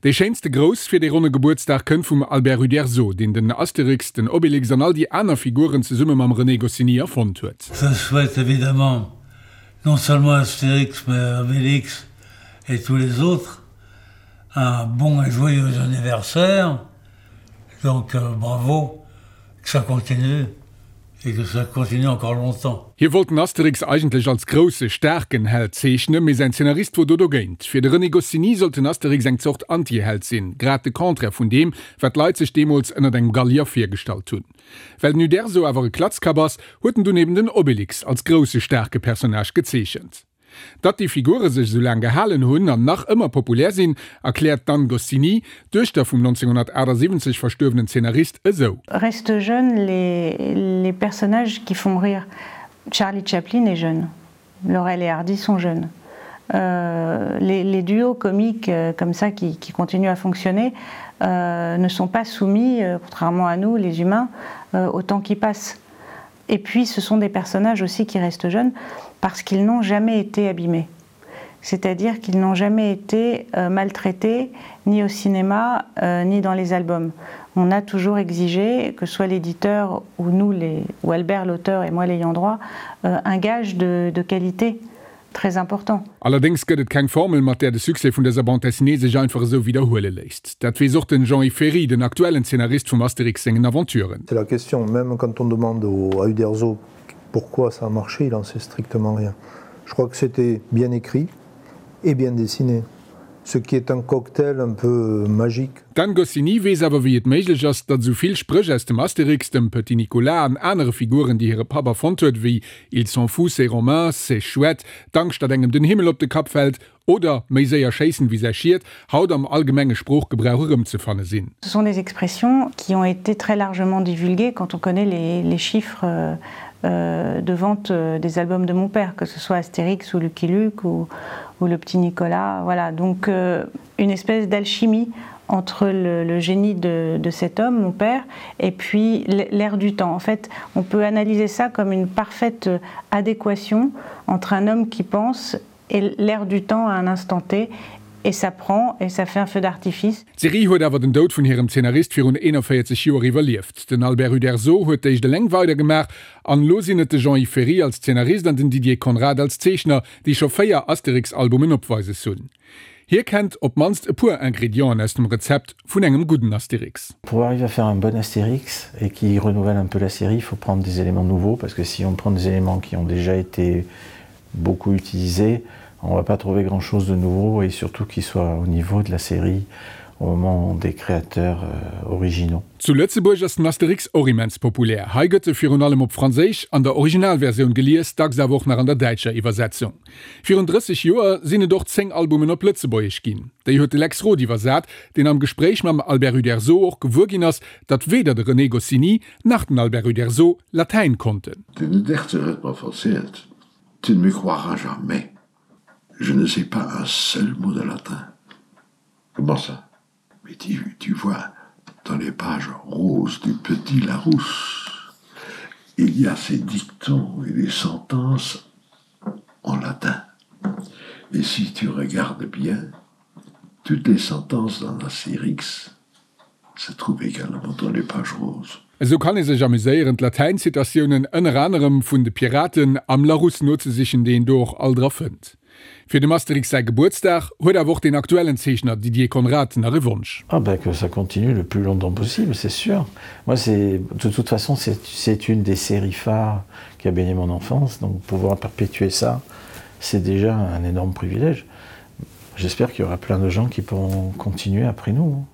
Dee schéinste Grouss fir dee ronne Gebuertsdag kënnt vum Albert Uderzo, deen den Asterix, den Obélix an all déi aner Figuren zesumme mam René Goscinny erfonnt huet. Je souhaite évidemment non seulement Astérix mais Obélix et tous les autres un bon et joyeux anniversaire donc bravo que ça continue et que ça continue encore longtemps. Hie wollt den Asterix eigentlech als grousse, staarken Held zeechnen, mee säin Zeenarist wor do dogéint. Fir de René Goscinny sollt den Asterix eng Zort Anti-Held sinn, grad de Contraire vun deem, wat d'Leit sech deemools ënnert engem Gallier virgestallt hunn. Well den Uderzo awer e Klatzkapp ass, huet en dunn eben den Obélix als grousse, staarke Personnage gezeechent. Datt déi Figure sech esou laang gehalen hunn an nach ëmmer populär sinn, erkläert d'Anne Goscinny, d'Duechter vum 1978 verstuerwenen Zeenarist, esou. Restent jeunes les, les personnages qui font rire. Charlie Chaplin est jeune, Laurel et Hardy sont jeunes. Euh, les, les duos comiques euh, comme ça qui, qui continuent à fonctionner euh, ne sont pas soumis, euh, contrairement à nous, les humains, euh, au temps qui passe. Et puis ce sont des personnages aussi qui restent jeunes parce qu'ils n'ont jamais été abîmés. C'est-à-dire qu'ils n'ont jamais été euh, maltraités ni au cinéma euh, ni dans les albums. On a toujours exigé que soit l'éditeur ou nous les, ou Albert l'auteur et moi l'ayant droit euh, un gage de, de qualité très important. Allerdéngs gëtt et keng Formel, mat där de Succès vun dëser Bande dessinée sech einfach esou widderhuele léisst. Dat weess och den Jean-Yves Ferry, den aktuellen Zeenarist vum Asterix sengen Aventuren. C'est la question, même quand on demande au, à Uderzo pourquoi ça a marché, il en sait strictement rien. Je crois que c'était bien écrit et bien dessiné, ce qui est un cocktail un peu magique. D'Anne Goscinny weess awer wéi et méiglech ass, datt esou vill Spréch aus dem Asterix, dem Petit Nicolas an anere Figuren, déi hire Papp erfonnt huet, wéi Ils sont fous ces Romains, c'est chouette, d'Angscht datt engem den Himmel op de Kapp fält oder méi séier schéissen wéi säi Schiet, haut am allgemenge Sproochgebrauch erëmzefanne sinn. Ce sont des expressions qui ont été très largement divulguées quand on connaît les, les chiffres euh, de vente des albums de mon père, que ce soit Astérix ou Lucky Luke ou, ou le petit Nicolas. Voilà, donc euh, une espèce d'alchimie entre le, le génie de, de cet homme, mon père, et puis l'air du temps. En fait, on peut analyser ça comme une parfaite adéquation entre un homme qui pense et l'air du temps à un instant T et ça prend et ça fait un feu d'artifice. D'Serie huet awer den Doud vun hirem Zeenarist virun 41 Joer iwwerlieft. Den Albert Uderzo huet d'éischt eleng weidergemaach an elo sinn et de Jean-Yves Ferry als Zeenarist an den Didier Conrad als Zeechner, déi scho 4 Asterix-Albumen opweises hunn. Hie kennt op d'mannst e puer Ingredienten aus dem Rezept vun engem gudden Astérix. Pour arriver à faire un bon Astérix et qui renouvelle un peu la série, il faut prendre des éléments nouveaux parce que si on prend des éléments qui ont déjà été beaucoup utilisés, on va pas trouver grand chose de nouveau et surtout qui soit au niveau de la série au moment des créateurs euh, originaux. Zu Lëtzebuerg ass den Asterix och immens populär. Hei gëtt e virun allem op Franséisch an der Originalversioun gelies, dacks awer och nach an der däitscher Iwwersetzung. Virun 30 Joer sinn et och 10 Albumen op Lëtzebuergesch ginn. Déi huet de Lex Roth iwwersat, deen am Gespréich mam Albert Uderzo och gewuer ginn ass, datt weder de René Goscinny nach den Albert Uderzo Latäin konnten. Den Uderzo huet mer verzielt, Tu ne me croiras jamais, je ne sais pas un seul mot de latin. Comment ça? Mais tu, tu vois, dans les pages roses du Petit Larousse, il y a ces dictons et des sentences en latin. Et si tu regardes bien, toutes les sentences dans l'Astérix se trouvent également dans les pages roses. Esou kann ee sech amuséieren, d'Latäin-Zitatiounen ënner anerem vun de Piraten am Larousse nozesichen, déi een do och alt era fënnt. Fir dem Asterix säi Gebuertsdag huet awer och den aktuellen Zeechner Didier Conrad nach e Wonsch. Ah ben que ça continue le plus longtemps possible, c'est sûr. Moi c'est de toute façon c'est une des séries phares qui a baigné mon enfance, donc pouvoir perpétuer ça, c'est déjà un énorme privilège. J'espère qu'il y aura plein de gens qui pourront continuer après nous.